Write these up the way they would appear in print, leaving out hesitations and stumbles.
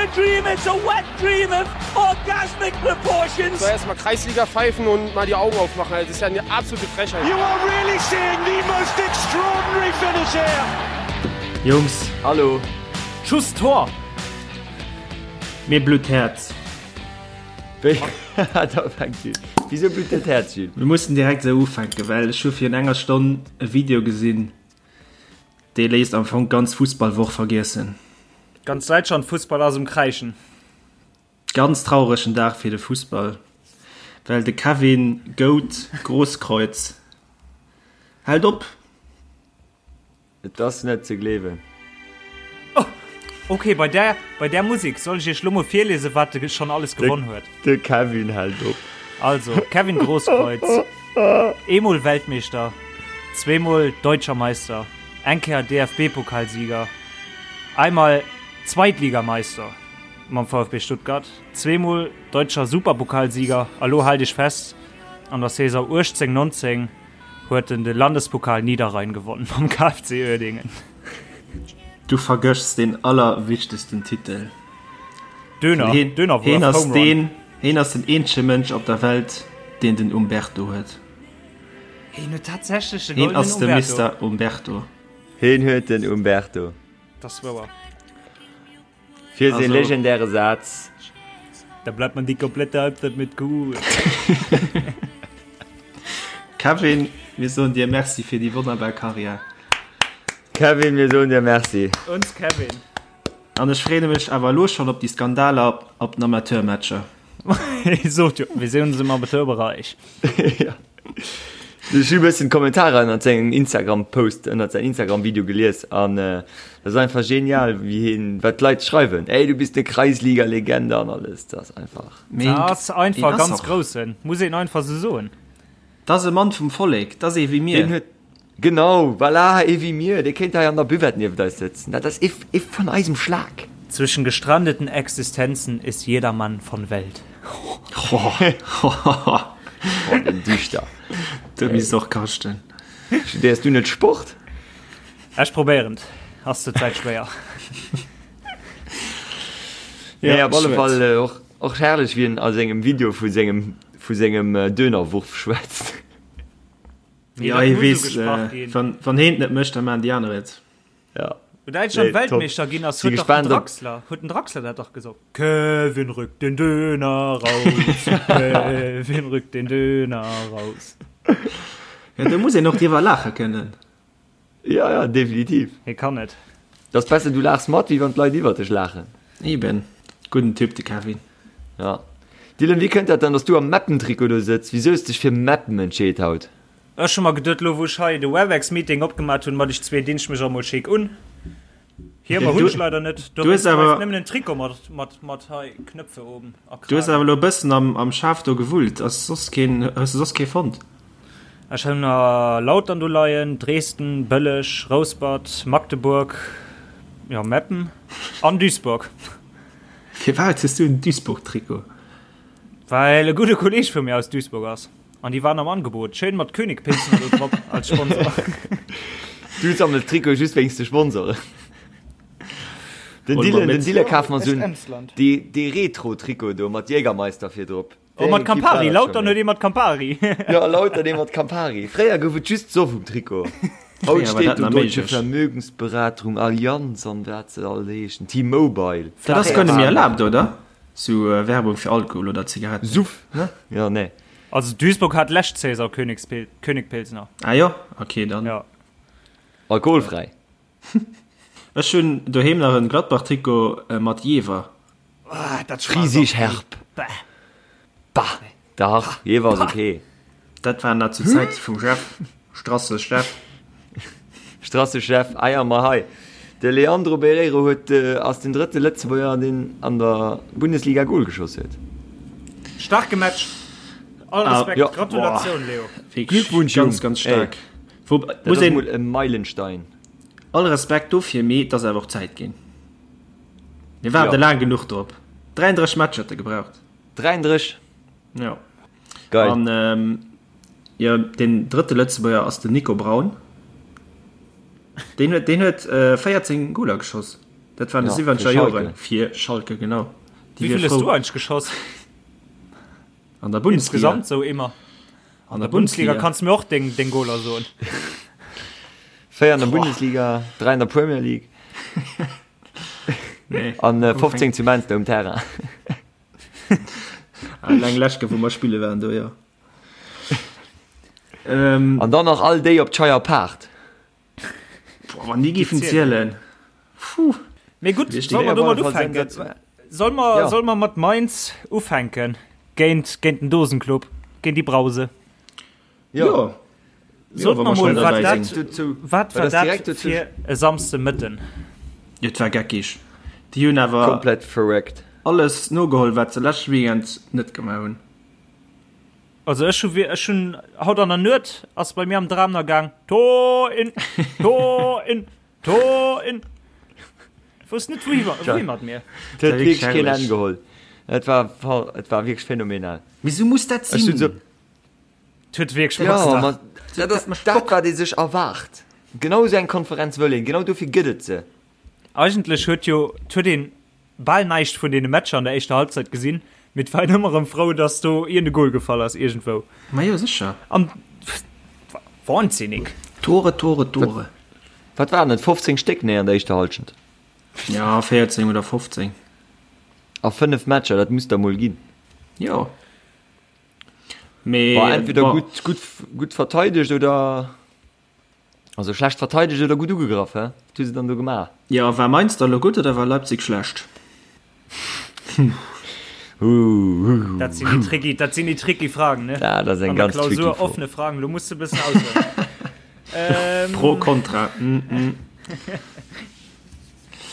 a dream, it's a wet dream of orgasmic proportions. So erstmal Kreisliga pfeifen und mal die Augen aufmachen. Das ist ja eine absolute Frechheit. You are really seeing the most extraordinary finish here. Jungs. Hallo. Schuss Tor! Mir blutt d'Häerz. Da fänkt un. Wisou blutt dir d'Häerz, Jules? Mir mussen direkt esou ufänken, well ech hu virun enger Stonn e Video gesinn, dee léisst am Fong d'ganz Fussballwoch vergiessen. Ganz Däitschland Fussball ass um Kräischen. Ganz trauregen Dag fir de Fussball, well de Kevin Goat Grosskreutz hält op. Et ass net ze gleewen. Oh, ok, bei där, bei där Musik soll ech iech lo mol virliesen, wat de schonn alles gewonn huet. De Kevin hält op. Also, Kevin Grosskreutz, eemol Weltmeeschter, zweemol Deutscher Meister, eng Kéier DFB-Pokalsieger, einmal Zweitligameister mam VfB Stuttgart, zweemol Deutscher Superpokalsieger a lo haalt iech fest, an der Saison 18, 19 huet en de Landespokal Niederrhein gewonnen mam KFC Uerdingen. Du vergëschs deen allerwichtegsten Titel. Döner, Heen, Dönerwurf, heen ass Home Run. deen, heen ass den eenzege Mënsch op der Welt, deen den Umberto huet. Heen huet tatsächlech de Heen goldenen ass de Umberto. Mister Umberto. Heen huet den Umberto. Dat ass wouer. Fir säi Also- legendäre Saz. Da bleibt man die komplette Halbzeit mit cool. Kevin, mir soen dir Merci fir déi wonnerbar Karriär. Kevin, mir soen dir Merci. Uns Kevin. An ech freeë mech awer elo schonn op déi Skandaler op den Amateurmatcher. Ich sot jo, wir sehen uns im Amateurbereich. Ja. Ech hu bëssen d'Kommentarer ënnert sengem Instagram-Post, ënnert säin Instagram-Video gelies an äh, dat ass einfach genial, wéi hien, wat d'Leit schreiwen. Ey, du bist eine Kreisliga-Legende an alles. Dat ass einfach. Mee Dat ass einfach een ass ganz och. groussen, muss een einfach sou soen. Dat ass e Mann vum Vollek, dat ass ee wéi mir. Deen huet, genau, voilà, ee wéi mir, dee kéint hei an der Buvette nieft eis sëtzen. Dat ass ee, ee vun eisem Schlag. Zwischen gestrandeten Existenzen ist jeder Mann von Welt. Boah, den Dichter. Du misst och kaschten. Studéiers du net Sport? Ech probéieren et, ass zur Zäit schwéier. Nee, op alle Fall och, och herrlech, wéi en a sengem Video vu sengem, vu sengem Dönerwurf schwätzt. Ja, hie weess, wann, wann heen et net mécht, da maachen déi aner et. Ja. Wou Däitschland Nee, top. Weltmeeschter ginn ass, Si huet dach den gespaant op. Draxler, huet den Draxler dat dach gesot. Kevin rückt den Döner raus, Kevin rückt den Döner raus. Ja, do muss een och driwwer laache kënnen. Ja, ja, definitiv. Hie kann et. Et ass besser du laachs mat, wéi wann d'Leit iwwer dech laachen. Eben. Gudden Typ, de Kevin. Ja. Dylan, wéi kënnt dat dann, dass du am Meppen-Trikot do sëtz? Wisou hues dech fir Meppen entscheet haut? Ech hu mer geduet, lo wou ech hei de Webex-Meeting opgemat hunn, mat iech zwee, dinn ech mech och mol schéck un. Hiemer hunn ech leider net, dowéinst bleift nëmmen en Trikot mat, mat, mat hei Knöpfe oben a Du hues Kragen. awer elo e bëssen am, am Schaf do gewullt. Ass soss keen, hues de soss kee fonnt? Ech hunn nach Lautern do leien, Dresden, Bëlleg, Rouspert, Magdeburg, jo Meppen an Duisburg. Firwat hues du en Duisburg-Trikot? Well e gudde Kolleg vu mir aus Duisburg ass. An déi waren am Angebot. Schéin mat König Pilsner do drop als Sponsor. Du sammels Trikote just wéinst de Sponsoren. Den Dylan, den Dylan kaf mer sou en dee, dee Retro-Trikot do mat Jägermeister vir drop. Oh, mat Campari, Lautern huet ee mat Campari. Ja, Lautern ee mat Campari. Fréier gouf et just Soff um Trikot. Haut steet do Deutsche Vermögensberatung, Allianz an wat se all heeschen, T-Mobile. Dat ass guer net méi erlaabt, oder? Sou Werbung fir Alkohol oder Zigaretten. Suff, ne? Ja, nee. Also Duisburg hat lescht Saison Königspil Königpilsner. Ah jo, okay dann. Ja. Alkoholfräi. Ech hunn doheem nach en Gladbach-Trikot mat Jever. Ah, dat schmaacht Friesisch och herb. Bäh. Bah, dach, Jever ass okay. Dat war nach zu Zäite vum Jeff, Strasse Jeff. Strasse Jeff, ah ja, ma hei, de Leandro Barreiro huet, ass den drëtte Lëtzebuerger, deen an der Bundesliga Gol geschoss huet. Starke Match. All Respekt, Ja. Gratulatioun Leo. Glückwunsch, Jung. Ganz, ganz staark. Wou, Dat muss ass een mol e Meilenstein. all Respekt dofir, mee et ass awer och Zäit ginn. Mir waarde Ja. laang genuch drop. 33 Matcher huet e gebraucht. 33? Ja. Geil. An ähm, jo, den drëtte Lëtzebuerger ass den Nico Braun. Deen huet, deen huet äh, 14 Goler geschoss. Dat war an de siwwenzeger Joren. Fir Schalke, genau. Wéi vill hues du eigentlech geschoss? An der Bundesliga? Insgesamt sou ëmmer. An der Bundesliga kanns du mir och deng, deng Goler soen. 4 an der Bundesliga, 3 an der Premier League. Nee. An 15 zu Mainz um Terrain. Alleng lescht Kéier, wou mer spille waren do, jo. Ähm, An dann nach all déi op d'Scheier Paart. Boah, wann déi géifen zielen. Puh. Mee gutt, solle mer domat ufänken? Solle mer, ja. Solle mer mat Mainz ufänken? Géint, géint den Dosenclub, géint déi Brause. Jo. Ja. Sot mer mol, wat dat, wat war dat fir e Samsdemëtten? Jo, et war geckig. Déi hunn awer komplett verréckt alles nogeholl, wat se leschte Weekend net gemaach hunn. Also ech hu ech hunn haut an der Nuet ass bei mir am Dram na gaang Tor in Tor in Tor in. Wousst net wouhi wouhi mat mir. Et huet wierklech keen Enn geholl. Et war et war wierklech phänomenal. Mee sou muss dat sinn. Et huet wierklech Jo, ma dat ass dat wat ee sech erwaart. Genau esou eng Konferenz wëll een, genau dofir gëtt et se. Eigentlech huet jo et huet een bal näischt vun deene Matcher an der éischter Halbzeit gesinn, mee et war een ëmmer erëm frou, dass do iergend e Goal gefall ass iergendwou. Majo sécher. An wahnsinnig. Tore, Tore, Tore. Wat waren et, 15 Stéck? Nee, an der éischter Halschent. Ja, 14 oder 15. A 5 Matcher, dat muss der mol ginn. Jo. Mee War entweder gutt, gutt, gutt verteidegt oder. Also schlecht verteidegt oder gutt ugegraff, hä? Wat hu se dann do gemaach? Jo, war Mainz da lo gutt oder war Leipzig schlecht? Dat sinn déi tricky, dat sinn déi tricky Fragen, ne? Ja, dat ass eng ganz tricky Fro. Offene Fragen, lo muss de bëssen aushuelen. ähm, Pro, Kontra. Mm -mm.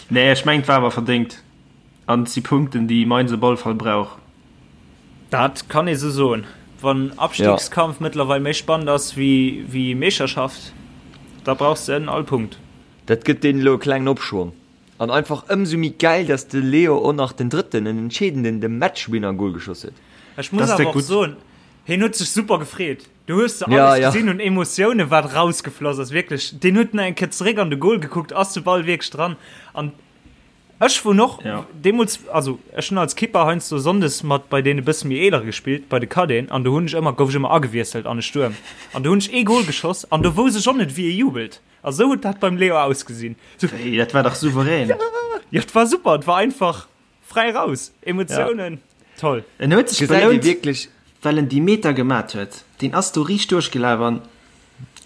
Nee, ech mengt war awer verdéngt. An et si Punkten, déi Mainz op alle Fall brauch. Dat kann ee sou soen. Wann Abstiegskampf ja. mëttlerweil méi spannend ass wéi, wéi Meeschterschaft, da brauchs de en all Punkt. Dat gëtt deenen elo e klengen Opschwong. An einfach ëmsou méi gäil, dass de Leo och nach den drëtten, en entscheedenden, de Matchwinner-Goal geschoss huet. Ech muss awer och soen, hien huet sech super gefreet. Du hues de alles ja, ja. gesinn un Emotioune wat rausgefloss ass wierklech. Deen huet nach eng Kéier zeréck an de Goal gekuckt, ass de Ball wierklech dran. An Ech wunn och ja. deemools also ech hunn als Kipper heiansdo sonndes mat bei deene bësse méi eelere gespillt, bei de Cadeten an do hunn ech ëmmer gouf ech ëmmer agewiesselt an de Stuerm an do hunn ech ee Goal geschoss an do wousst ech och net wéi ee jubelt a sou huet dat beim Leo ausgesinn. So, hey, dat war dach souverän. Ja, ja, et war super, et war einfach fräi raus, Emotiounen, ja. toll. En huet sech belount, wierklech well en déi Meter gemat huet. Deen ass do riicht duerchgelaf an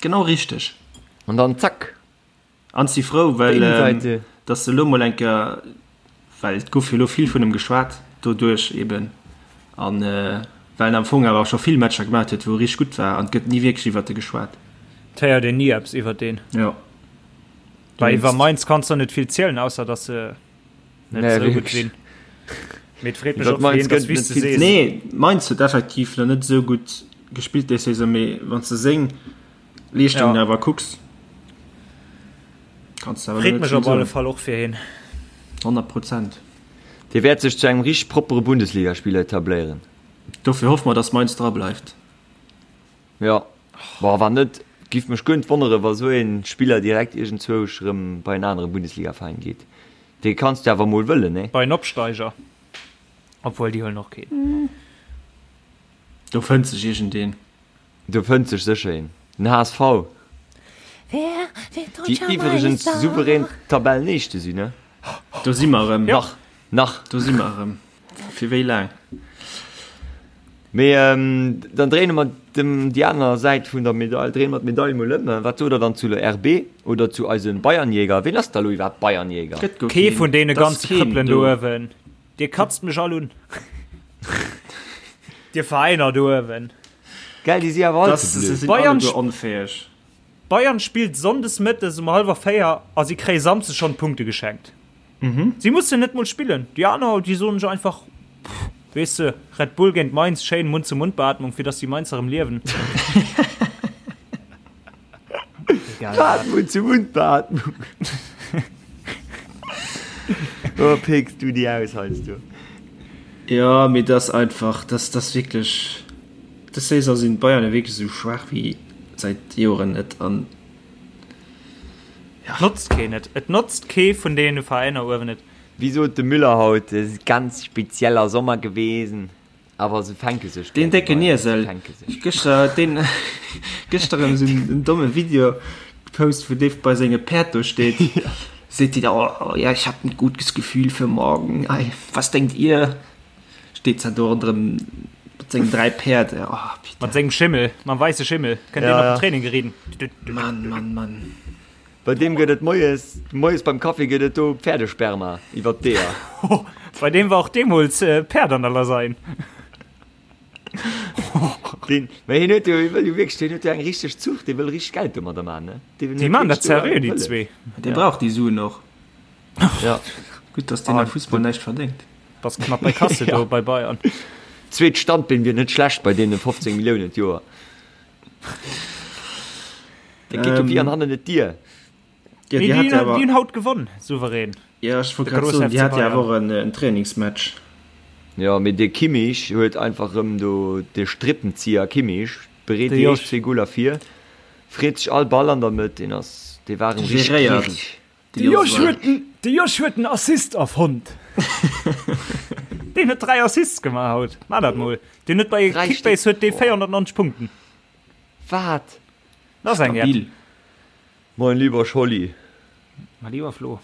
genau richteg. An dann zack, An si frou, well datt se elo mol eng Kéier, well et gouf jo elo vill vun em geschwat doduerch eben, an well en am Fong awer scho vill Matcher gemaat huet, wou e richteg gutt war, an et gëtt ni wierklech iwwert e geschwat. Et héiert een ni eppes iwwert deen. Jo. Well iwwer Mainz kanns de net vill zielen, ausser datt se net esou gutt sinn. Mee et freet mech och fir hien, datt wéi s de sees. Nee, Mainz huet effektiv nach net esou gutt gespillt déi Saison, mee wann s de seng Leeschtungen ja. awer kucks kannst du Freet mech op alle Fall och fir hien. 100 Prozent. Dee wäert sech zu engem richteg proppere Bundesligaspiller etabléieren. Dofir hoffe mer, dass Mainz dra bleift. Ja, boah, wann net, giff mech guer net wonnere wa sou een Spiller direkt iergendzwousch rëm bei en anere Bundesligaveräin geet. Dee kanns du awer mol wëllen, nee? Bei en Opsteiger. Obwuel, déi huelen och keen. Do fënnt sech iergendeen. Do fënnt sech sécher een. Den HSV. Déi iwwregens souverän Tabellenéischte sinn, ne? Do si mer erëm. Nach. Nach. Do si mer erëm. Fir wéi laang? Mee dann dréine mer dem déi aner Säit vun der Medail, dréine mer d'Medail mol ëm. Wat sot der dann zu der RB oder zu eise Bayernjäger? Ween ass da lo iwwerhaapt Bayernjäger? Gëtt guer Kee keen. vun deene Et ass ganze keen Krëppelen do do. uewen. Dir katzt mech all un. Dir Veräiner do uewen. Gell, déi si awer all ze blöd. Sinn Bayern alleguer onfäeg. Bayern spillt sonndes mëttes um hallwer 4 a si kréie samsdes schonn d'Punkte geschenkt. Si mussen net mol spillen. Déi aner, déi soen sech einfach, pff, weess de, Red Bull géint Mainz, schéin Mund-zu-Mund-Beatmung, fir dass déi Mainzer erëm liewen. Egal wat. Mund-zu-Mund-Beatmung. Oh, pécks du déi aus heiansdo. Jo, mee dat ass einfach, dat ass wierklech, dës Saison sinn d'Bayern jo wierklech esou schwaach wéi säit Joren net an. Ja. Notzt keen et. Et notzt kee vun deene Veräiner uewen et. Wéi sot de Müller haut, et ass ganz spezieller Sommer gewesen. Awer se fänke sech. Deen décken Iesel. Gëschter huet deen gëschter erëm esou en domme Video gepost, wou dee bei senge Päerd do steet. Seet déi da, oh ja, ich hab ein gutes Gefühl für morgen. Ei, was denkt ihr? Steet zwar do ronderëm mat sengen 3 Päerd. Oh, Peter. Mat sengem Schimmel, mam weisse Schimmel. Kënnt deen op den Training geriden. Mann, Mann, Mann. Bei deem gëtt et moies, moies beim Kaffi gëtt et do Pferdesperma iwwer d'Eeër. Bei deem war och deemools Päerd an der Lasagne. Deen, mä hien huet jo, hie wëll jo wierklech, deen huet jo eng richteg Zucht, dee wëll richteg Geld domadder man, ne? Deen Déi man dat seriö, déi zwee. Dee brauch déi Suen och. Ja. Gutt, dass deen am Fussball näischt verdéngt. Bass knapp bei Kasse do bei Bayern. Zweet Standbeen wier net schlecht bei deene 15 Milliounen d'Joer. Dat geet jo wéi an hannen et Dier. Ja, déi hat awer. Déi hunn haut gewonn, souverän. Ja, ech wollt grad soen, déi hat jo awer och en Trainingsmatch. Jo, mee de Kimmich huet einfach erëm do, de Strippenzieher Kimmich bereet déi éischt zwee Goler vir, freet sech all Ball an der Mëtt, deen ass, dee war erëm richteg gierig. De Josh huet den, de Josh huet den Assist erfonnt. Deen huet 3 Assists gemaach haut. Maach dat mol. Deen huet bei Kickbase huet dee 490 Punkten. Wat? Dat ass eng App. Mein lieber Scholli. Mein lieber Flo.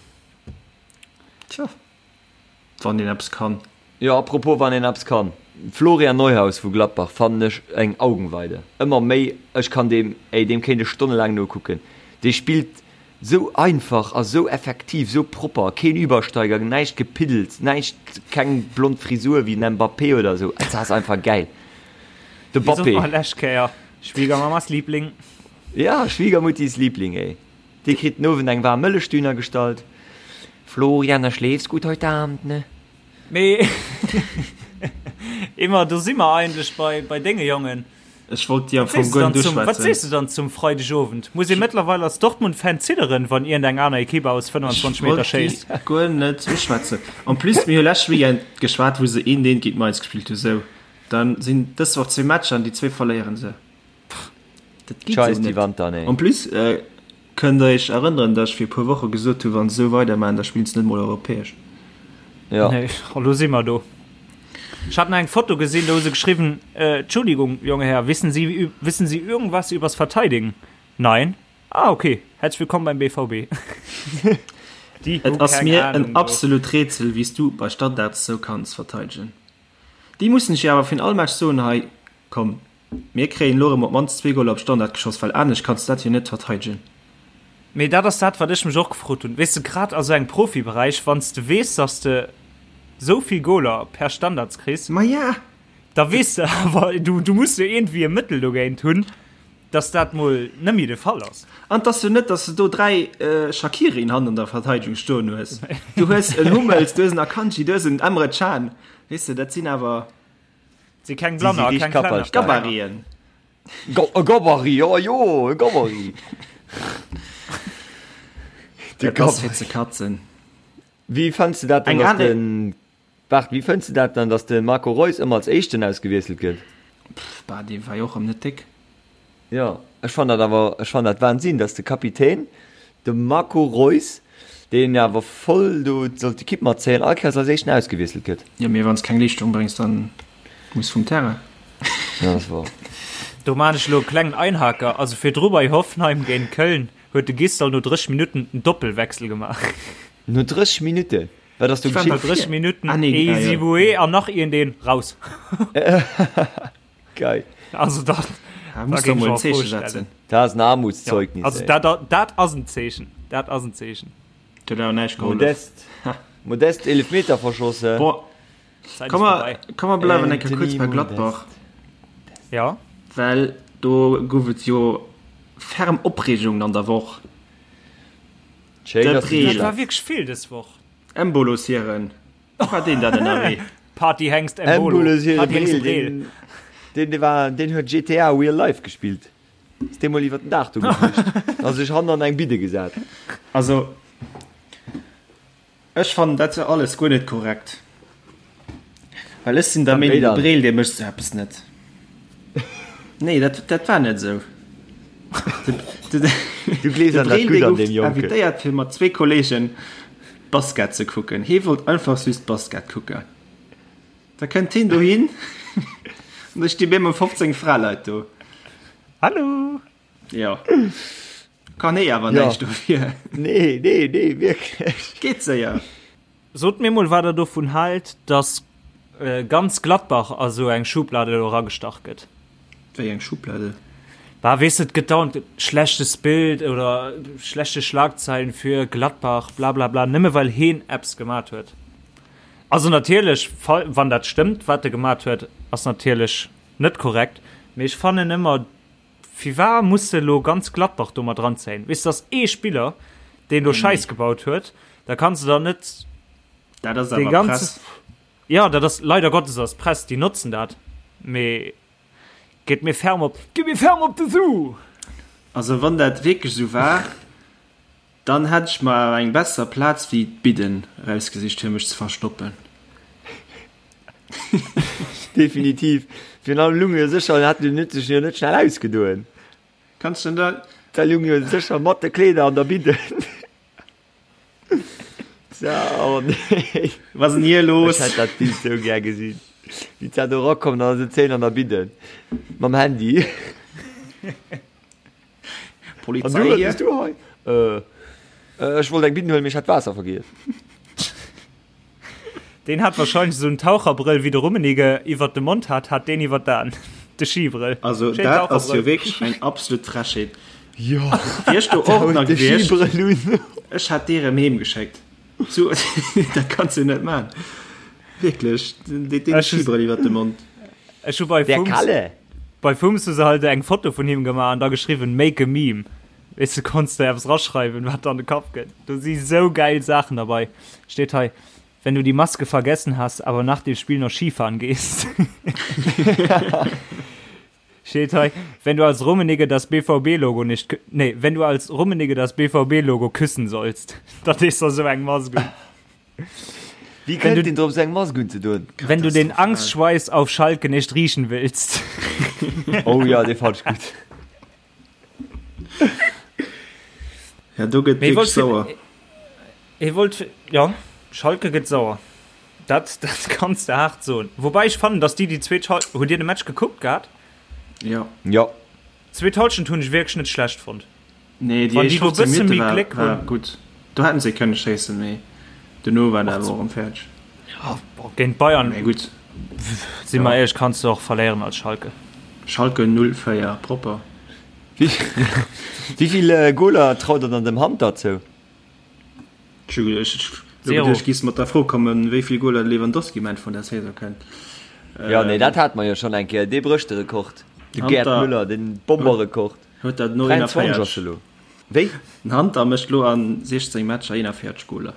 Tja. Wann een eppes kann. Jo, apropos wann een eppes kann, Florian Neuhaus vu Gladbach fannen ech eng Augenweide. Ëmmer méi, ech kann deem, ey, deem kéint ech stonnelaang nokucken. Dee spillt sou einfach a sou effektiv, sou propper, keen Übersteiger, näischt Gepiddels, näischt, keng blond Frisur wéi den Mbappé oder sou. Et ass einfach gäil. De Wéi sot Bappé. mer lescht Kéier, Schwiegermamas Liebling. Ja, Schwiegermuttis Liebling, ey. Dee kritt den Owend eng waarm Mëllechdüner gestallt. Florian, da schläfs gut heute Abend, ne? Mee Emma, do si mer eigentlech bei, bei denge Jongen. Ech wollt déi am Fong guer net uschwätzen. Wat sees du dann zum Freidegowend? Muss ee mëttlerweil als Dortmund-Fan zidderen, wann iergendeng aner Ekipp aus 25 Meter schéisst? Ech wollt déi guer net uschwätzen. En plus, mir hu lescht Weekend geschwat, wou se eent eent géint Mainz gespillt hu. Sou, dann sinn dës Woch zwee Matcher an déi zwee verléiere se. Dat geet sou net. En plus kënnt der iech erënneren, datt ech fir e puer Woche gesot hu wann se sou weidermaachen, da spillen se net mol europäesch. Ja. Nee, elo si mer do. Ech hat nach eng Foto gesinn, do hu se geschriwwen, Entschuldigung, junger Herr, wissen Sie, wissen Sie irgendwas übers Verteidigen? Nein. Ah, okay. Herzlich willkommen beim BVB. Déi hu Et ass keng mir en Ahnung do. absolut Rätsel, wéi s du bei Standards sou kanns verteidegen. Déi mussen ech jo awer virun all Match soen, hei komm, Mir kréien elo erëm op d'mannst zwee Goler op Standard geschoss, well anescht kanns de dat jo net verteidegen. Mee dat ass dat, wat ech mech och gefrot hunn. Weess de, grad a sou engem Profiberäich, wann s de weess, datt s de sou vill Goler per Standards kriss, Maja! da weess de awer, du, du muss jo iergendwéi e Mëttel dogéint hunn, datt dat mol net méi de Fall ass. An et ass jo net, datt s de do 3 Shaqirien hannen an der Verteidegung stoen hues. Du hues en Hummels, du hues en Akanji, du hues en Emre Can. Weess de, dat sinn awer. Si keng Blanner a keng Klenner. Gabariten. E Gabarit, jo jo, e Gabarit. Dat ass fir ze katzen. Wéi fënns de dat dann, dass den, waart, wéi fënns de dat dann, dass de Marco Reus ëmmer als éischten ausgewiesselt gëtt? Pff, bah, dee war jo och erëm net déck. Jo, ech fannen dat awer, ech fannen dat Wahnsinn, dass de Kapitän, de Marco Reus, deen awer voll do sollt d'Ekipp matzéien, all Kéiers als éischten ausgewiesselt gëtt. Jo, mee wann s keng Leeschtung bréngs, dann muss vum Terrain. Ja, dat ass wouer. Do maan ech elo e klengen Einhaker, also virdru bei Hoffenheim géint Köln huet de Gisdol no 30 Minutten en Doppelwechsel gemaach. No 30 Minutten? Wat ass do geschitt? No 30 Minutten Ehizibue an nach iergendeen raus. Geil. Also dat, da muss da mol en Zeeche setzen. Dat ass en Armutszeugnis. Ja, also dat, dat ass en Zeechen. Dat ass en Zeechen. Dat huet awer näischt gehollef. Modest, Modest Eelefmeter verschossen. Bon, komm mer, komm mer bleiwen eng Kéier kuerz bei Gladbach. Ja. Well do gouf et jo ferm Opreegungen an der Woch. Schéin, dass du Dat war wierklech vill dës Woch. Embolo Siren. War deen dat ënnerwee? Partyhengst Embolo. Partyhengst Breel. Deen, deen war, deen huet GTA Real Life gespillt. Ass dee mol iwwer den Daach do geflücht. A sech hannen an eng Bidde gesat. Also, ech fannen dat jo alles guer net korrekt. Well ech sinn der Meenung, de Breel, dee mécht sou eppes net. Nee, dat, dat war net esou. Du gleefs De an dat Breel Gutt dee an gouf deem Jonken. invitéiert fir mat zwee Kollegen Basket ze kucken. Hee wollt einfach just Basket kucken. Da kënnt heen dohin an da sti bemol 15 Fraleit do. Hallo! Jo. Kann hee awer Ja. näischt dofir. Nee, nee, nee, wierklech. Geet séier. Sot mir mol wat der dovun haalt, dass ganz Gladbach a sou eng Schublade elo eragestach gëtt. Wéi eng Schublade? Bah, weess de, et gëtt dauernd schlechtes Bild oder schlechte Schlagzeilen fir Gladbach, blablabla, nëmme well heen eppes gemat huet. Also natierlech, wann dat stëmmt, wat e gemat huet, ass natierlech net korrekt, mee ech fannen ëmmer, Firwar muss de elo ganz Gladbach do mat ranzéien? Weess de, ass ee Spiller, deen do Schäiss gebaut huet, da kanns de dann net Dat ass dee awer ganze. Press. Jo, dat ass leider Gottes ass Press, déi notzen dat, mee geet mir ferm op, geet mir ferm op de Su! Also wann dat wierklech esou war, Dann hätt ech mer awer eng besser Plaz wéi d'Bidden erausgesicht fir mech ze verstoppen. Definitiv. Virun allem lung jo sécher, hat den huet sech jo net schnell ausgedoen. Kanns de da. Da lung jo sécher mat de Kleeder an der Bidden. So, oh nee. Was denn hier los? Ech hätt dat Bild sou gär gesinn. Wéi d'Sa do erakommt an da sëtzt hien an der Bidden mam Handy. Polizei An du, hier. bist du hei? Äh, äh, ech wollt eng Bidden huelen, mee ech hat Waasser vergiess. Deen hat wahrscheinlech esou en Taucherbrëll wéi de Rummenigge iwwert de Mond hat, hat deen iwwert d'Aen. De Skibrëll. Also Schéin dat ass jo Taucherbrëll. wierklech eng absolut Frechheet. Jo, Wier ech do och nach de gewiescht, Skibrëll un. ech hätt dee rëm heem geschéckt. So, dat kanns du net man. Wierklech, deen Ech hu- Skibrëll iwwert de Mond. Ech hu bei Der Fums, Kalle. bei Fums hu se halt eng Foto vun him gemaach an da geschriwwen make a meme. Weess du, konns de eppes raschreiwen, wat der an de Kapp kënnt. Do si sou geil Saachen derbei. Steet hei, Wenn du die Maske vergessen hast, aber nach dem Spiel noch Skifahren gehst. Steet hei, Wenn du als Rummenigge das BVB-Logo nicht, nee, wenn du als Rummenigge das BVB-Logo küssen sollst. Dat is da sou eng Mask un. Wéi Wenn du- kënnt een drop sou eng Mask unzedoen? Wenn du den Angstschweiß auf Schalke nicht riechen willst. Oh ja, dee fand ech gutt. Ja, do gëtt Mee wierklech wollt sauer. Hie wollt, ja, Schalke gëtt sauer. Dat, dat kanns de haart soen. Woubäi ech fannen, datt déi déi zweet Hal-, hutt Dir de Match gekuckt gehat? Ja. Ja. D'zweet Halschent hunn ech wierklech net schlecht fonnt. Nee, déi Wann déi éischt do 15 bësse Minutte méi war, Gléck war hunn. gutt. Do hätten se kënne schéissen, mee dono war dat awer och erëm fäerdeg. Ja, boah, géint Bayern, Mee gutt, si mer éierlech, kanns de och verléieren als Schalke. Schalke 04, propper. Wéi vill Goler traut der dann dem Hunter zou? Ech hu ech Zero. geduecht, giss mat der Fro kommen, wéi vill Goler de Lewandowski um Enn vun der Saison kënnt. Ja, nee, dat hate mer jo schonn eng Kéier. Dee brécht de Rekord. De Gerd Hunter- Müller, den Bomberrekord. Huet dat no 23 ass 41. elo. Wéi? Den Hunter mécht lo an 16 Matcher 41 Goler.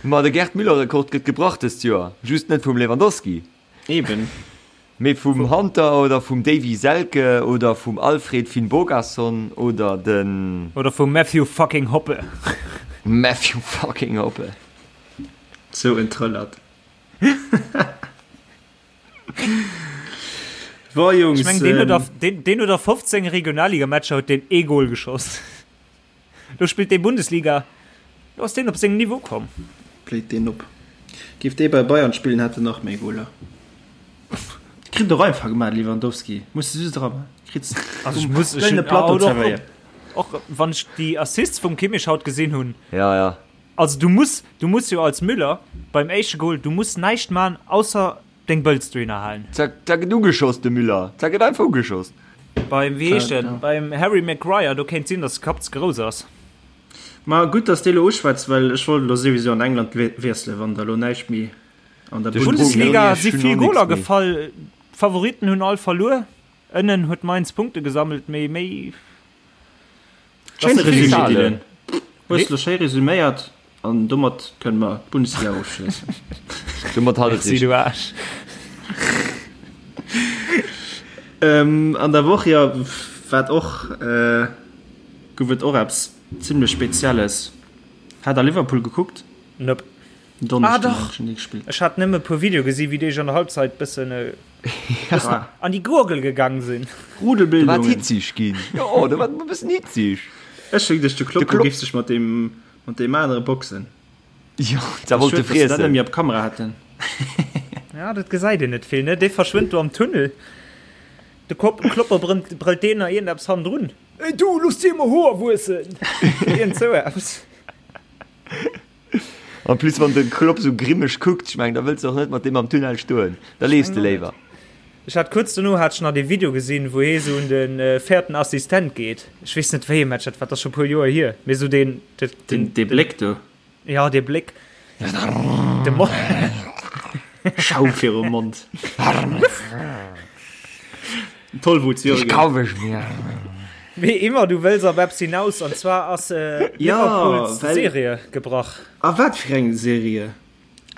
Ma de Gerd Müller-Rekord gëtt gebrach dëst Joer. Just net vum Lewandowski. Eben. Mee vum Hunter oder vum Davy Selke oder vum Alfred Finnbogason oder den. Oder vum Matthew fucking Hoppe. Matthew fucking Hoppe. Sou en Trëllert. Bon Jungs. Ech meng, deen huet a, deen, deen huet a 15 Regionalligamatcher huet deen ee Goal geschoss. Lo spillt dee Bundesliga, lo ass deen op seng Niveau komm. Bléit deen op. Géif dee bei Bayern spillen, hätt en nach méi Goler. Kritt och einfach gemaach, Lewandowski. Muss de just eran. Kritt Also ech muss, ech kleine hunn, Plateau ah, oder zerwéiert. och, och wann ech déi Assists vum Kimmich haut gesinn hunn. Ja, ja. Also du muss, du muss jo als Müller beim éischte Goal, du muss näischt man ausser deng Bëlz dohinner halen. Zack, da gëtt ugeschoss, de Müller. Zack, gëtt einfach ugeschoss. Beim, wéi heescht Ja, en, beim Harry Maguire, do kéint sinn, datt de Kapp ze grouss ass. Ma gutt, dass de elo uschwätz, well ech wollt elo souwisou an England wiesselen, wann der elo näischt méi an der De Bundesliga. Bundesliga Ech si hunn vill och nix Goler méi. gefall, d'Favoritten hunn all verluer. Ënnen huet Mainz Punkte gesammelt, mee méi. Schéine Das ist Resumé, viel. Dylan. Hues lo schéi resuméiert an domat kënne mer d'Bundesliga ofschléissen. Domat hat et Merci, sech. du Aarsch. Ähm, an der Woch jo wat och äh, gouf et och eppes zimmlech Spezielles. Hat der Liverpool gekuckt? Nope. Donneschden Ah, dach. hat schon gespillt. Ech hat nëmme e puer Video gesi wéi déi sech an der Halbzeit bëssen. Ja. An déi Gurgel gegang sinn. Rudelbildungen. Da war et hitzig ginn. Jo, da war et e bëssen hitzig. Ech hu geduecht, de Klopp, de géif sech mat deem, mat deem anere boxen. Jo, da wollt e friessen. Schued, dass se dat net méi op Kamera haten. Ja, dat gesäit een net vill, ne? Dee verschwënnt do am Tunnel. De Klopper brëllt deen nach iergendeppes hannendrun. Ey du, looss dir emol Hoer wuessen! Iergend sou eppes. En plus wann de Klopp sou grimmeg kuckt, ech mengen da wëlls de och net mat deem am Tunnel stoen, da leefs de léiwer. Ech hat kuerz dono hat ech nach dee Video gesinn, wou hee sou un de véierten Assistent geet. Ech weess net wéi ee Match dat war, dat ass scho puer Joer hier, mee sou deen, den, dee Bléck do. Ja, dee Bléck. De Mo Schaum virum Mond. Tollwut, Jürgen. Kauf ech mir. Wéi immer, du wëlls op eppes hinaus, an zwar ass Ja, Liverpools well- Serie gebrach. A wat fir eng Serie?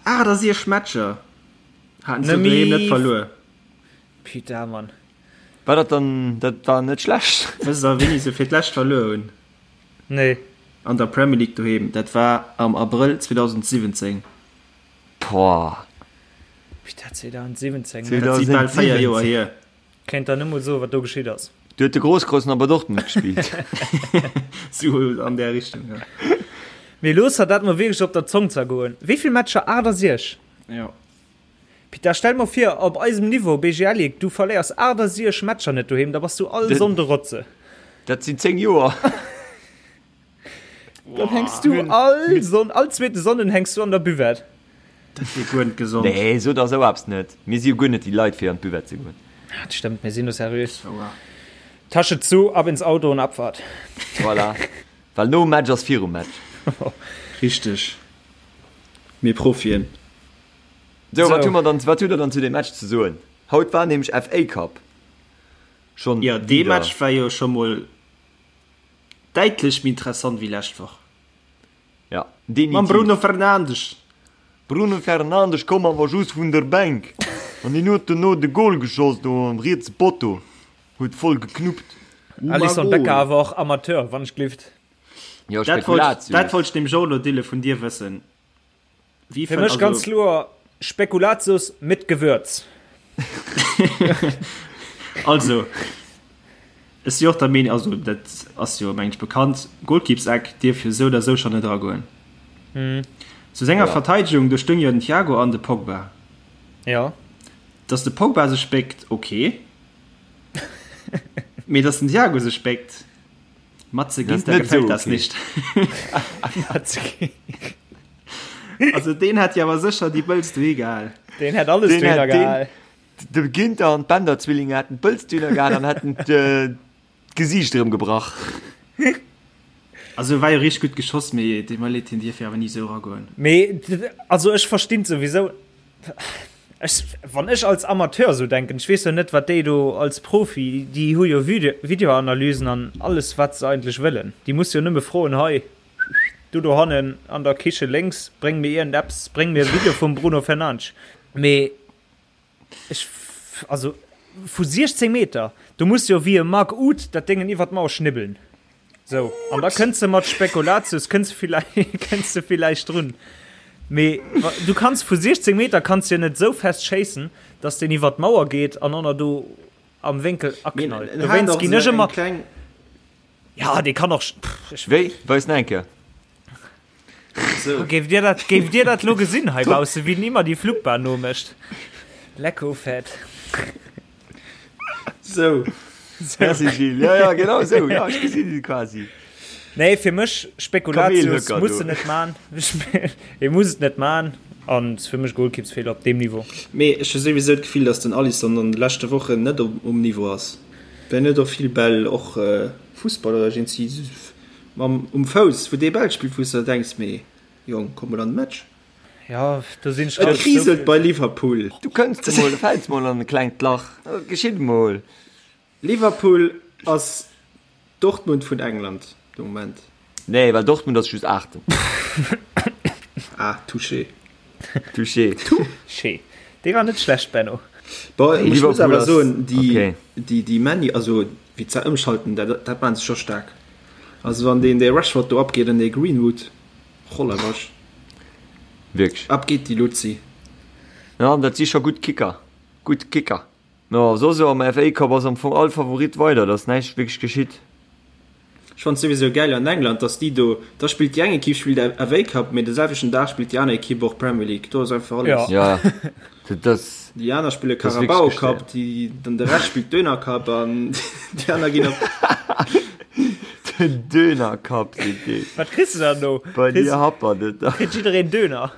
68 Matcher haten se Nëmme- doheem net verluer. Putain, Mann. War dat dann, dat war net schlecht. Wësst der, wéini se fir d'lescht verluer hunn? Nee. An der Premier League doheem, dat war am Abrëll 2017. Boah. Putain, 2017, ne? Dat si bal 4 Joer hier. Kéint der net mol soen, wat do geschitt ass. Du huet de Grosskreuz nach bei Dortmund gespillt. Sou an där Richtung, jo. Mee looss der dat mol wierklech op der Zong zergoen. Wéi vill Matcher? 68? Jo. Peter, stell mol vir, op eisem Niveau, BGL Ligue, du verléiers 68 Matcher net doheem, da bass du all Sonnde Rotze. Dat sinn 10 Joer. Dann hänks du all Sonn, all zweete Sonnden hänks du an der Buvette. Dat wier guer net gesond. Nee, so der sou eppes net. Mir si jo guer net déi Leit fir an d'Buvette ze goen. Dat stëmmt, mir sinn do seriös. Tasche zu, ab ins Auto und Abfahrt. Voilà. Well nom Match ass virum Match. Richteg. Mir Profien. Sou, wat hu mer dann, wat hutt der dann zu deem Match ze soen? Haut war nämlech FA Cup. Schonn Jo, dee wieder. Match war jo scho mol däitlech méi interessant wéi lescht Woch. Ja, Mam definitiv. Bruno Fernandes. Bruno Fernandes koum awer just vun der Bänk an hien huet dono de Gol geschoss do am rietse Potto, huet voll geknuppt. Alisson Becker awer och Amateur, wann ech glift. Jo, Dat wollt, Spekulatius. dat wollt ech nämlech och elo Dille vun dir wëssen. Wie Fir mech ganz kloer Spekulatius mit Gewürz. Also, ech si och der Meenung, also dat ass jo meng ech bekannt, Golkippseck dierf jo sou oder sou schonn net eragoen. Zu senger Ja. Verteidegung, do stoung jo den Thiago an de Pogba. Ja. Dass de Pogba sech béckt, ok. Mee dass den Thiago sech béckt, Matze Ginter gefällt das nicht. Also deen hätt jo awer sécher déi Bëlz dohi gehal. Deen hätt alles dohinner gehal. De Ginter an d'Bender-Zwillinge hätten d'Bëlz dohinner gehal an hätten d'Gesiicht erëm gebrach. Also war jo richteg gutt geschoss, mee deet mer leed, hien dierf jo awer ni esou eragoen. Mee also ech verstinn souwisou. Ech, wann ech als Amateur sou denken, ech weess jo net wat déi do als Profi, déi hu jo Videoanalysen an alles wat se eigentlech wëllen. Déi muss jo nëmme froen, hei du dohannen an der Kiche lénks, bréng mir iergend eppes, bréng mir e Video vum Bruno Fernandes. Mee ech, also vu 16 Meter, do muss jo wéi e Marc Uth dat Déngen iwwer d'Mauer schnibbeln. Sou, an da kënns de mat Spekulatius, kënns villäicht, kënns de villäicht drun. Mee du kanns vu 16 Meter kanns jo net sou fest schéissen, dass deen iwwer d'Mauer geet an ënner do am Wénkel aknallt. Dowéinst ginn ech ëmmer. Ja, dee kann och. Pff, Wéi? Weis nach eng Kéier. So. Géif Dir dat, géif Dir dat lo gesinn hei bausse, wéi den immer déi Flugbahn nomécht? Lecko fett. So. Merci Gilles. Ja, ja, genau so. Ja, ech gesinn se quasi. Nee, fir mech Spekulatius Kamelhöcker muss do. se net man. E muss et net man an ass fir mech Golkippsfeeler op deem Niveau. Mee ech hu souwisou d'Gefill, datt den Alisson an de leschte Wochen net um Niveau ass. Well en huet och vill Bäll, och Fussball oder iergendwéi Mam um Fouss, wou dee Bäll spillt, wou s de der denks, mee Jong, komm mol an de Match. Ja, do sinn ech Et ganz kriselt bei Liverpool. Du kënns emol, du fäls mol an e klengt Lach, dat geschitt emol. Liverpool ass Dortmund vun England de Moment. Nee, well Dortmund ass just Aachten. Ah, touché. Touché. Touché. Dee war net schlecht, Benno. Bon, ech muss awer soen, déi, déi, déi Many, also wéi ze ëmschalten, dat, dat maachen se scho staark. Also wann deen dee Rashford do abgeet an dee Greenwood, Rollerwasch. Wierklech. Ab geet déi Luzi. Ja, dat si scho gutt Kicker. Gutt Kicker. No, soss am FA Cup ass am Fong all Favorit weider, et ass näischt wierklech geschitt. Ech fannen souwisou gäil an England, dass déi do, da spillt déi eng Equipe spillt FA Cup, mee de selwechten Dag spillt déi aner Equipe och Premier League. Do ass einfach alles. Ja, dat ass. Déi aner spille Carabao Cup, déi, dann de Rescht spillt Döner Cup an déi aner ginn op. Den Döner Cup seet deen. Wat kriss de dann do? Bei dir happert et da. Kritt jiddereen Döner?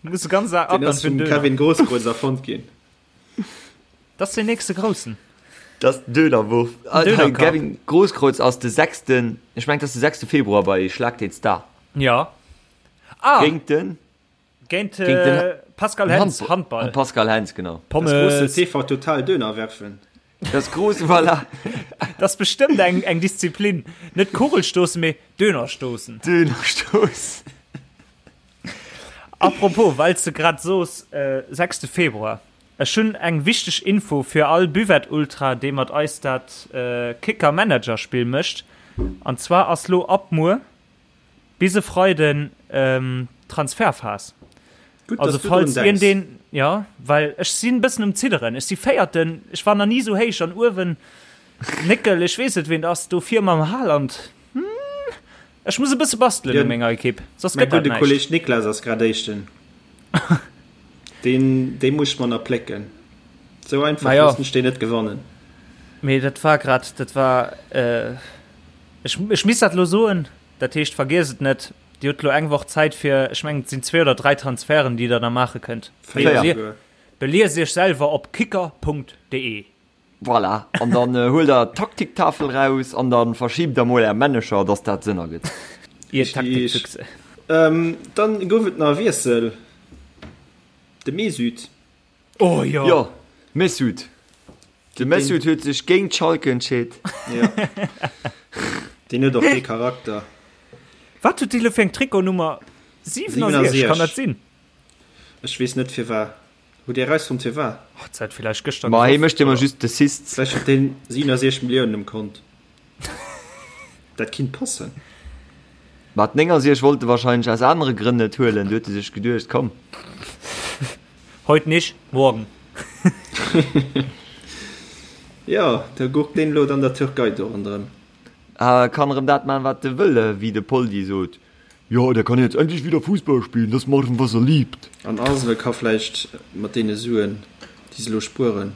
Muss de ganz Dag Den ass vum Kevin Grosskreutz erfonnt ginn. Dat ass den nächste Groussen. Dat ass den Dönerwurf. Döner Cup. Kevin Grosskreutz ass de sechsten, ech mengen, dat ass de sechste Februar bei Schlag den Star. Ja. Ah! Géint den? Géint den Pascal Hens, Handball. Pascal Hens, genau. Pommes. Das große TV Total Döner werfen. Das große, voilà. Das ass bestëmmt eng, eng Disziplin. Net Kugelstoßen, mee Dönerstoßen. Dönerstoßen. Apropos, well s de grad soos, sechste Februar, ech hunn eng wichteg Info fir all Buvette-Ultra, dee mat eis dat Kicker-Manager-Spill mécht. An zwar ass lo ab muer bis e Freiden Transferphas. Gutt, Also dass du drun falls denks. iergendeen, jo, well ech sinn e bëssen um Zidderen. Ech si Véierten, ech war nach ni esou héich an uewen. Néckel, ech weess net, ween et ass, do vir mam Haaland. Ech muss e bësse bastelen u menger Ekipp, soss Mäi gëtt dat gudde näischt. Kolleg Niklas ass grad Éischten. Deen, dee muss ech mer nach plécken. Sou einfach Ma jo. loossen ech deen net gewannen. Mee dat war grad, dat war, ech, ech misst dat elo soen, dat heescht, vergiesst et net, Dir hutt elo eng Woch Zäit fir, ech mengen, et sinn zwee oder dräi Transferten, déi Der da maache kënnt. Véier souguer. Beliest Iech selwer op kicker.de. Voilà, an dann huelt der d'Taktiktafel raus an dann verschibt der mol är Männecher, dass dat Sënn ergëtt. Ihr Taktikfüchse. Dann gouf et nach e Wiessel, de Mesut. Oh jo! Jo, Mesut. De Mesut huet sech géint Schalke entscheet. Jo. Deen huet och dee Charakter. Wat huet dee lo fir eng Trikotnummer? 67, kann dat sinn? Ech weess net firwat. Hutt Dir erausfonnt firwat? Oh, dat huet villäicht gëschter Ma hie gesoff, mécht ëmmer oder? just d'Assists. Vläicht huet deen 67 Milliounen um Kont. Dat kinnt passen. Ma d'69 wollt e wahrscheinlech aus anere Grënn net huelen. Du huet e sech geduecht, komm. Heute nicht, morgen. Jo, da gurkt deen elo an der Türkei do ronderëm. A kann erëm dat man, wat e wëll, wéi de Poldi sot, Jo, der kann jetzt endlich wieder Fußball spielen, das machen, was er liebt. An Arsenal ka vläicht mat deene Suen, déi se elo spueren.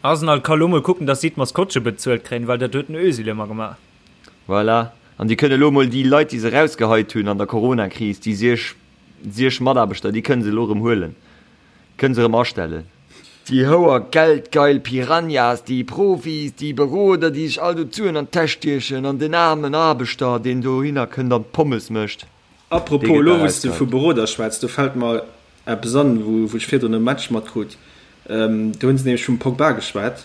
Arsenal ka lo mol kucken, dass si d'Maskottche bezuelt kréien, well dat huet den Özil ëmmer gemaach. Voilà. An déi kënne elo mol déi Leit, déi se erausgeheit hunn an der Corona-Kris, déi siech, siech Mataarbechter, déi kënne se elo erëm huelen, kënne se erëm astellen. Déi houer geldgeil Piranhas, déi Profis, déi Beroder, déi sech all do d'Suen an d'Täsch stiechen an den aarmen Aarbechter, deen dohinner kënnt an d'Pommes mécht, dee Apropos, gëtt elo da wou s de vu erausgeheit. Beroder schwätz, do fält mer eppes an, wou ech virdrun e Match matkrut. Do hunn se nämlech vum Pogba geschwat,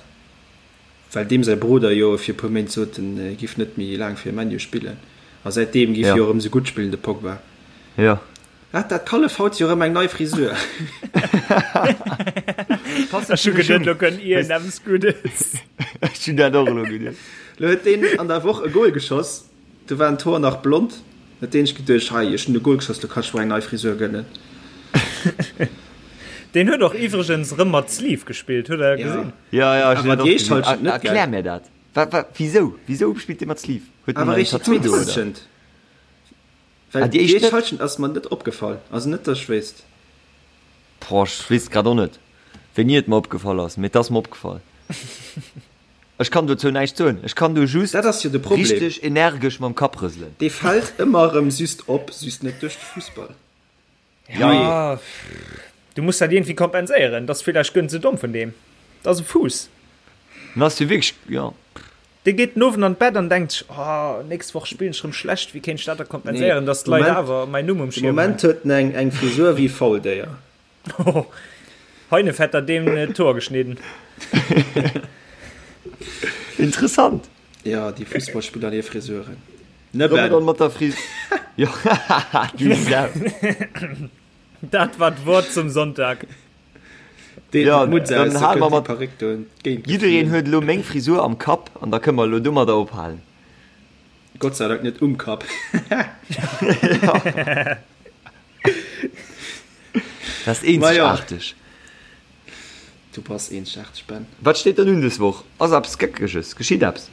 well deem säi Beroder jo fir e puer Méint sot, en giff net méi laang fir ManU spillen. A säitdeem giff Jo. jo erëm sou gutt spillen, de Pogba. Jo. Hat dat Kallef haut jo rem eng nei Frisur. Ech hu geduet, lo kënnt iergendeppes Guddes. Ech hunn dat och elo geduet. Lo huet deen an der Woch e Goal geschoss, do waren d'Hoer nach blond, huet deen sech geduecht, hei, ech hunn e Goal geschoss, lo kann ech mer eng nei Frisur gönnen. Deen huet och iwwregens rëm mat Sleeve gespillt, hutt der gesinn? Ja, ja, ech hunn Awer dat déi och éischt gesinn. Halschent net, gell? Erklär mir dat. Wa, wa, wisou? Wisou spillt dee mat Sleeve? Huet en Awer en réischt déi Tattoo zweet do, oder? Halschent. Well Ah, déi déi éischt éischt net? Halschent ass mer net opgefall, also net dass ech wéisst. Boah, ech weess grad och net wéini et mer opgefall ass, mee et ass mer opgefall. Ech kann dozou näischt soen, ech kann do just Dat ass jo de Problem. richteg energesch mam Kapp rëselen. Dee fält ëmmer erëm just op, just net duerch de Fussball. Ja, du muss dat iergendwéi kompenséieren. Dat ass villäicht guer net esou domm vun deem. Dat ass e Fuuss. En ass jo wierklech, jo. Dee geet den Owend an d'Bett an denkt sech, Oh, nächst Woch spillen ech rëm schlecht, wéi kéint ech dat da kompenséieren, dass d'Leit awer mäin Numm um De Schierm hunn? Moment huet en eng eng Frisur wéi e Fauldéier. Heinefetter deem d'Hoer geschnidden. Interessant. Jo, déi Fussballspiller an hir Frisuren. Ne Soll mer Ben? dann mat der Fris Jo, du Sau. Dat war d'Wort zum Sonntag. Deen Ja, Mutz dann aus, da hale mer kënnt déi mat Perréck do entgéint Jiddereen geflunn. huet elo meng Frisur am Kapp an da kënne mer elo domadder ophalen. Gott sei Dank net um Kapp. Dat ass Ma jo. eenzegaarteg. Du bass eenzegaarteg, Ben. Wat steet dann un des Woch? Ass eppes Geckeges? Geschitt eppes?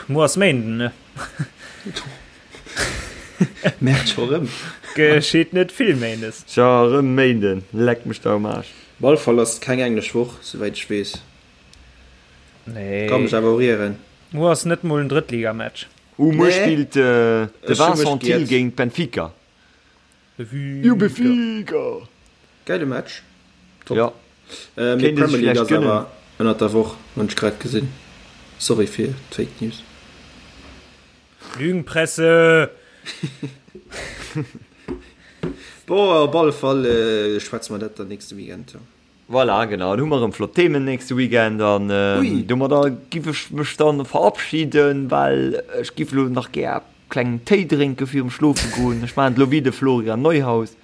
Muer ass Méinden, ne? Merkt scho rëm. Geschitt net vill Méindes. Scho rëm Méinden, leck mech der um Aarsch. Op alle Fall ass et keng englesch Woch, souwäit ech weess. Nee. Ka mech awer och ieren. Muer ass net mol en Drëttligamatch. Uh, muer spillt de Vincent Thill géint Benfica. Benfica. Gäile Match. Top. Ja. Äh, mee d'Premier League ass awer ënnert der Woch, hunn ech grad gesinn. Sorry fir d'Fake News. Lügenpresse! Bon, op alle Fall äh, schwätze mer dat dann nächste Weekend. Ja. Voilà, genau, dann hu mer erëm flott Themen nächste Weekend an ähm, domadder giff ech mech dann verabschieden, well ech giff lo nach gär klengen Téi drénke virum schlofe goen. Ech maachen et lo wéi de Florian Neuhaus.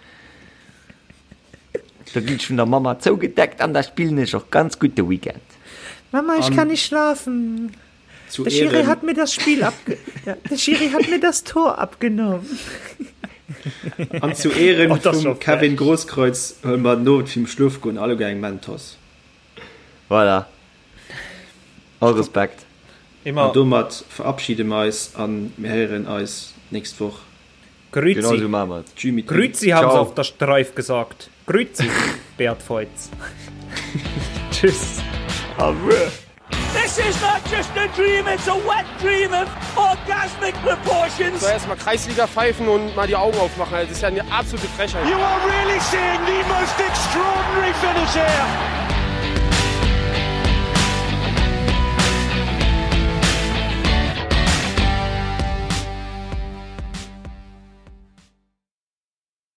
Da ginn ech vun der Mama zougedeckt an da spillen ech och ganz gutt de Weekend. Mama, ich kann nicht schlafen. Zu Der Schiri Ehren. hat mir das Spiel abge der Schiri hat mir das Tor abgenommen. An zu Ehren Oh, das ist vum schon Kevin frech. Grosskreutz huele mer den Owend virum Schlofgoen alleguer eng Mentos. Voilà. All Respekt. Immer. An domat verabschide mer eis an mir héieren eis d'nächst Woch. Grüezi. Genau sou maache mer et. Tschü mit Ü. Grüezi haben se Ciao. auf der Streif gesagt. Grüezi, Beat Feuz. Tschüss. Au revoir. This is not just a dream, it's a wet dream of orgasmic proportions. So erstmal Kreisliga pfeifen und mal die Augen aufmachen. Das ist ja eine absolute Frechheit. You are really seeing the most extraordinary finish here.